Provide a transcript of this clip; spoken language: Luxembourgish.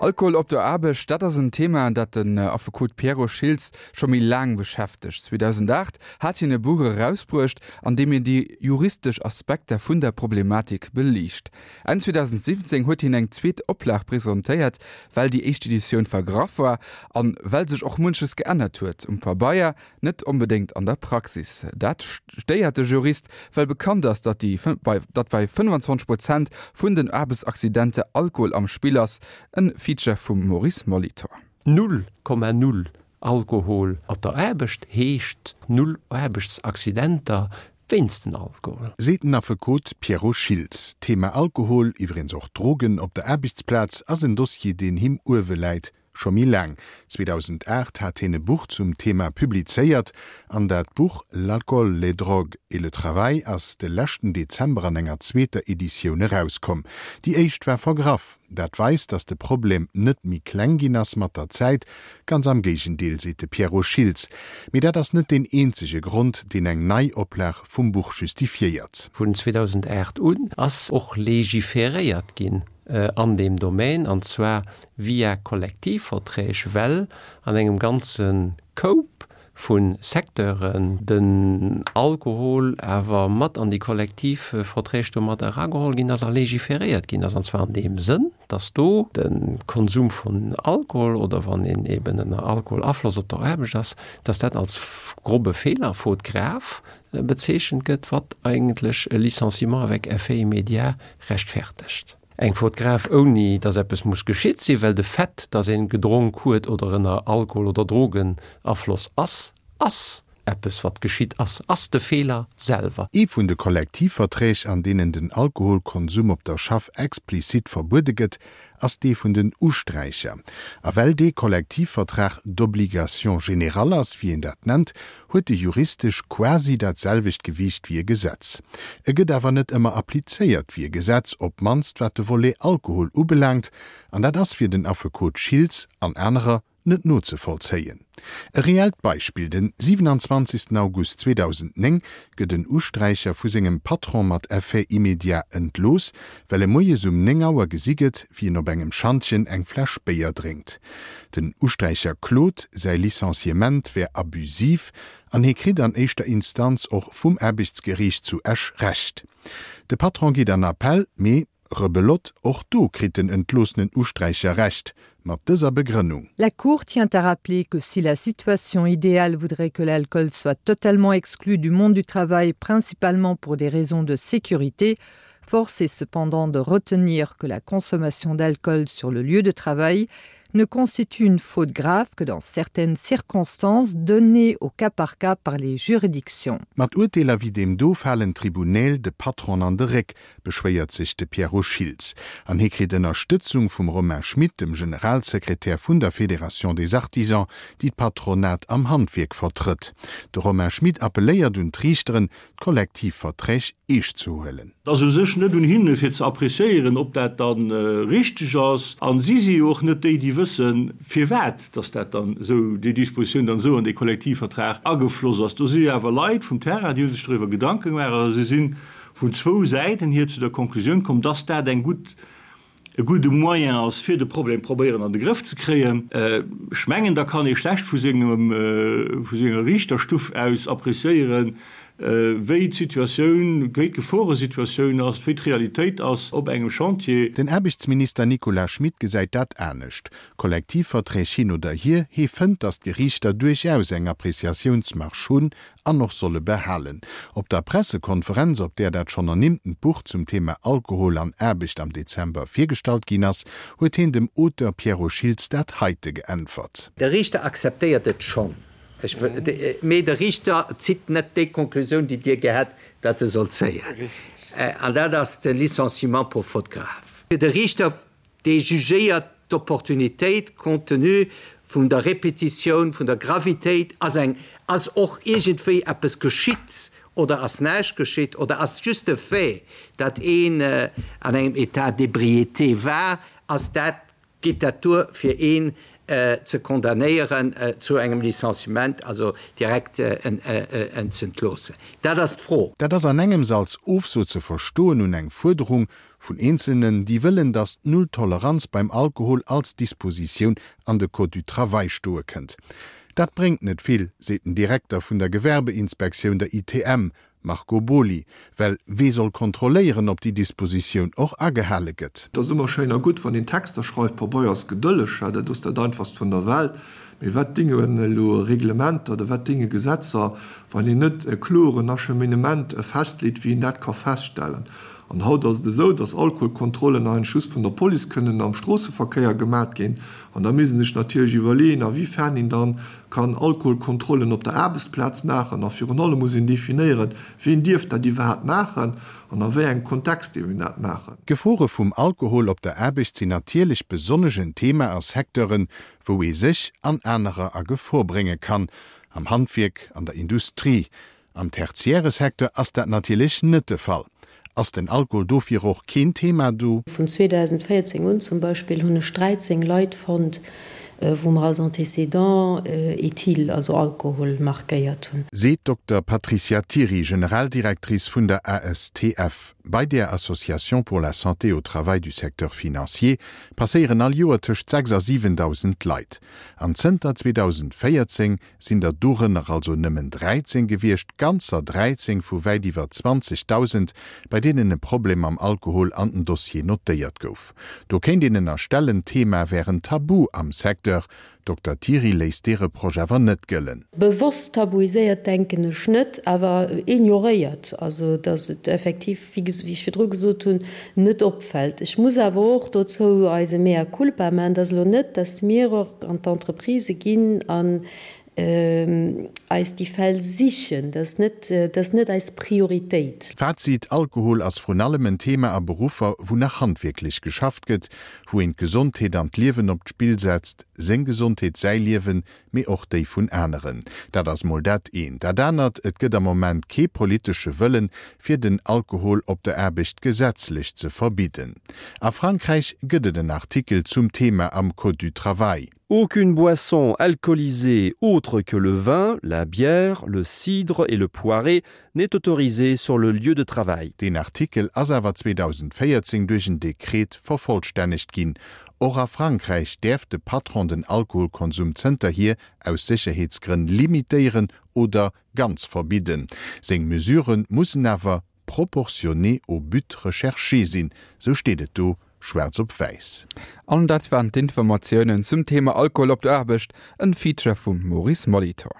Alkohol op der Aarbecht, dat ass en Thema, dat den Affekot Pierrot Schiltz scho méi laang beschäftegt. 2008 hat hien e Buch erausbruecht, an deem hien déi juristesch Aspekter vun der Problematik beliicht. Enn 2017 huet hien eng zweet Oplag presentéiert, well déi éischt Editioun vergraff war an well sech och munches geännert huet, um Pabeier, net onbedéngt an der Praxis. Dat stéiert de Jurist, well bekannt ass, datt déi datt bei 25 Prozent vun den Aarbechtsaccidenter Alkohol am Spill ass. En Feature vum Maurice Molitor. 0,0 Alkohol op der Aarbecht heescht null Aarbechtsaccidenter wéinst den Alkohol. Seet den Affekot Pierrot Schiltz. D'Thema Alkohol, iwweregens och Drogen, op der Aarbechtsplaz ass en Dossier, deen him uewe läit. Scho méi laang, 2008 hat hien e Buch zum Thema publizéiert an dat Buch L'alcool, les drogues et le travail ass de leschten Dezember an enger zweeter Editioun erauskomm. Déi éischt war vergraff. Dat weist, datt de Problem net méi kleng ginn ass mat der Zäit, ganz am Géigendeel, seet de Pierrot Schiltz. Mee dat ass net deen eenzege Grond, deen eng Neioplag vum Buch justifiéiert. Vun 2008 un ass och légiféréiert ginn an deem Domaine, an zwar via Kollektivverträg, well an engem ganze Koup vu Secteuren den Alkohol awer mat an déi Kollektivverträg do mat erageholl ginn ass a légiféréiert ginn ass, an zwar an deem Sënn, dass do de Konsum vun Alkohol oder wann een eben ënner Alkoholafloss op der Aarbecht ass, dass dat als grobe Feeler, faute grave, bezeechent gëtt, wat eigentlech e Licenciement avec effet immédiat rechtfertegt. Eng Faute grave ouni dass eppes muss geschitt sinn, well de Fait, dass een gedronk huet oder ënner Alkohol oder Drogenafloss ass, ass eppes wat geschitt ass, ass de Feeler selwer. Ee vun de Kollektivverträg, an deenen den Alkoholkonsum op der Schaff explizit verbuede gëtt, ass dee vun den Usträicher. A well dee Kollektivvertrag d'obligation générale ass, wéi een dat nennt, huet e juristesch quasi dat selwecht Gewiicht wéi e Gesetz. E gëtt awer net ëmmer applizéiert wéi e Gesetz, op d'mannst wat de Volet Alkohol ubelaangt, an dat ass fir den Affekot Schiltz an anerer net nozevollzéien. E reellt Beispill, Den 27 August 2009 gëtt en Usträicher vu sengem Patron mat Effet immédiat entlooss, well e moies um 9 Auer gesi gëtt, wéi en op engem Schantjen eng Fläsch Béier drénkt. Den Usträicher klot, säi Licenciement wär abusiv an hie kritt an éischter Instanz och vum Aarbechtsgeriicht zu Esch Recht. De Patron geet an Appell, mee, rebelote, och do kritt den entloossenen Usträicher Recht, mat dëser Begrënnung. La Cour tient à rappeler que si la situation idéale voudrait que l'alcool soit totalement exclu du monde du travail principalement pour des raisons de sécurité, force est cependant de retenir que la consommation d'alcool sur le lieu de travail ne constitue une faute grave que dans certaines circonstances données au cas par cas par les juridictions. Mat Urteeler wéi deem do falen d'Tribunäl de Patron an de Réck, beschwéiert sech de Pierrot Schiltz. An hie kritt Ënnerstëtzung vum Romain Schmit, dem Generalsekretär vun der Fédération des Artisans, déi d'Patronat am Handwierk vertrëtt. De Romain Schmit appelléiert un d'Riichteren, d'Kollektivverträg eescht ze huelen. Et ass u sech net un hinne fir ze appréciéieren, ob dat da richteg ass. A si si jo och net déi, déi wëssen, firwat dass dat dann esou, déi Dispositioun dann esou an dee Kollektivvertrag agefloss ass. Do si jo awer Leit vum Terrain, déi hu sech doriwwer Gedanke gemaach a si si vun zwou Säiten hier zu der Konklusioun komm, dass dat eng gutt, e gudde Moyen ass, fir de Problem probéieren an de Grëff ze kréien. Ech mengen, da kann ee schlecht vu sengem, vu senger Riichterstuff aus appréciéieren, wéi d'Situatioun, wéi d'Geforesituatioun ass, wéi d'Realitéit ass op engem Chantier. Den Aarbechtsminister Nicolas Schmit gesäit dat anescht. Kollektivverträg hin oder hier, hee fënnt, datt d'Geriichter duerchaus eng Appréciatiounsmarge hunn an och solle behalen. Op der Pressekonferenz, op där dat schonn ernimmtent Buch zum Thema Alkohol an Aarbecht am Dezember virgestallt ginn ass, huet heen dem Auteur Pierrot Schiltz dat heite geäntwert. De Riichter akzeptéiert et schonn, mee de Riichter zitt net déi Konklusioun, déi Dir gär hätt, datt e soll zéien. An dat ass de Licenciement pour faute grave. De Riichter Dee jugéiert d'Opportunitéit compte tenu vun der Répétitioun, vun der Gravitéit, ass eng, ass och iergendwéi eppes geschitt oder ass näischt geschitt oder ass just de Fait, datt een an engem État d'ébriété war, ass dat, geet dat duer fir een ze condamnéieren zu engem Licenciement, also direkt en z'entloossen? Dat ass d'Fro. Dat ass an engems als Ofso ze verstoen un eng Fuerderung. Vun Eenzelnen, déi wëllen, datt d'Null-Toleranz beim Alkohol als Dispositioun an de Code du Travail stoe kënnt. Dat bréngt net vill, seet den Direkter vun der Gewerbeinspektioun, der ITM, Marco Boly, well wee soll kontrolléieren, ob déi Dispositioun och agehale gëtt? Et ass ëmmer schéin a gutt, wann een Texter schreift, Pabeier ass gedëlleg, dat ass dat Einfachst vun der Welt. Mee wat dingen elo Reglementer oder wat dinge Gesetzer, wann een net e kloren Acheminement festleet, wéi een dat ka feststellen? An haut ass et esou, dass Alkoholkontrollen eigentlech just vun der Police kënnen am Stroosseverkéier gemat ginn. An da misst een sech natierlech iwwerleeën, a wéi fern een dann kann Alkoholkontrollen op der Aarbechtsplaz maachen. A virun allem muss een definéieren, wien dierf dat iwwerhaapt maachen an a wéi engem Kontext dierf een dat maachen. D'Gefore vum Alkohol op der Aarbecht sinn natierlech besonnesch en Thema a Secteuren, wou ee sech an anerer a Gefor brénge kann, am Handwierk, an der Industrie. Am tertiäre Secteur ass dat natierlech net de Fall. Ass den Alkohol dofir och keen Thema do? Vun 2014 un zum Beispill hunn ech 13 Leit fonnt, wou mer als Antécédent éthyle, also Alkohol, markéiert hunn. Seet d'Dokter Patricia Thiry, Generaldirectrice vun der ASTF. Bei där Association pour la santé au travail du secteur financier passéieren all Joer tëscht 6 a 7.000 Leit. An zënter 2014 sinn der dorënner also nëmmen 13 gewiescht, ganzer 13 vu wäit iwwer 20.000, bei deenen e Problem mam Alkohol an den Dossier notéiert gouf. Do kéint een ënnerstellen, d'Thema wär en Tabu am Secteur. Dokter Thiry léisst dee Reproche awer net gëllen. Bewosst tabuiséiert denken ech net, awer ignoréiert, also datt et effektiv, wéi ech virdru gesot hunn, net opfält. Ech muss awer och dozou eise Mea culpa maachen, et ass elo net, datt mir och an d'Entreprisë ginn an eis déi Fäll sichen. Dat ass net, dat ass net eis Prioritéit. Fazit, Alkohol ass vrun allem en Thema a Beruffer, wou nach handwierklech geschafft gëtt, wou een d'Gesondheet an d'Liewen op d'Spill setzt, seng Gesondheet, säi Liewen, mee och déi vun aneren. Dat ass mol dat eent. Dat anert, et gëtt am Moment kee politesche Wëllen, fir den Alkohol op der Aarbecht gesetzlech ze verbidden. A Frankräich gëtt et en Artikel zum Thema am Code du travail. Aucune boisson alcoolisée autre que le vin, la bière, le cidre et le poiré n'est autorisée sur le lieu de travail. Deen Artikel ass awer 2014 duerch en Dekret vervollstännegt ginn. Och a Frankräich däerf de Patron den Alkoholkonsum zënterhier aus Sécherheetsgrënn limitéieren oder ganz verbidden. Seng Mesurë mussen awer proportionné au but recherché sinn, sou steet et do schwaarz op wäiss. An dat waren d'Informatiounen zum Thema Alkohol op der Aarbecht, en Feature vum Maurice Molitor.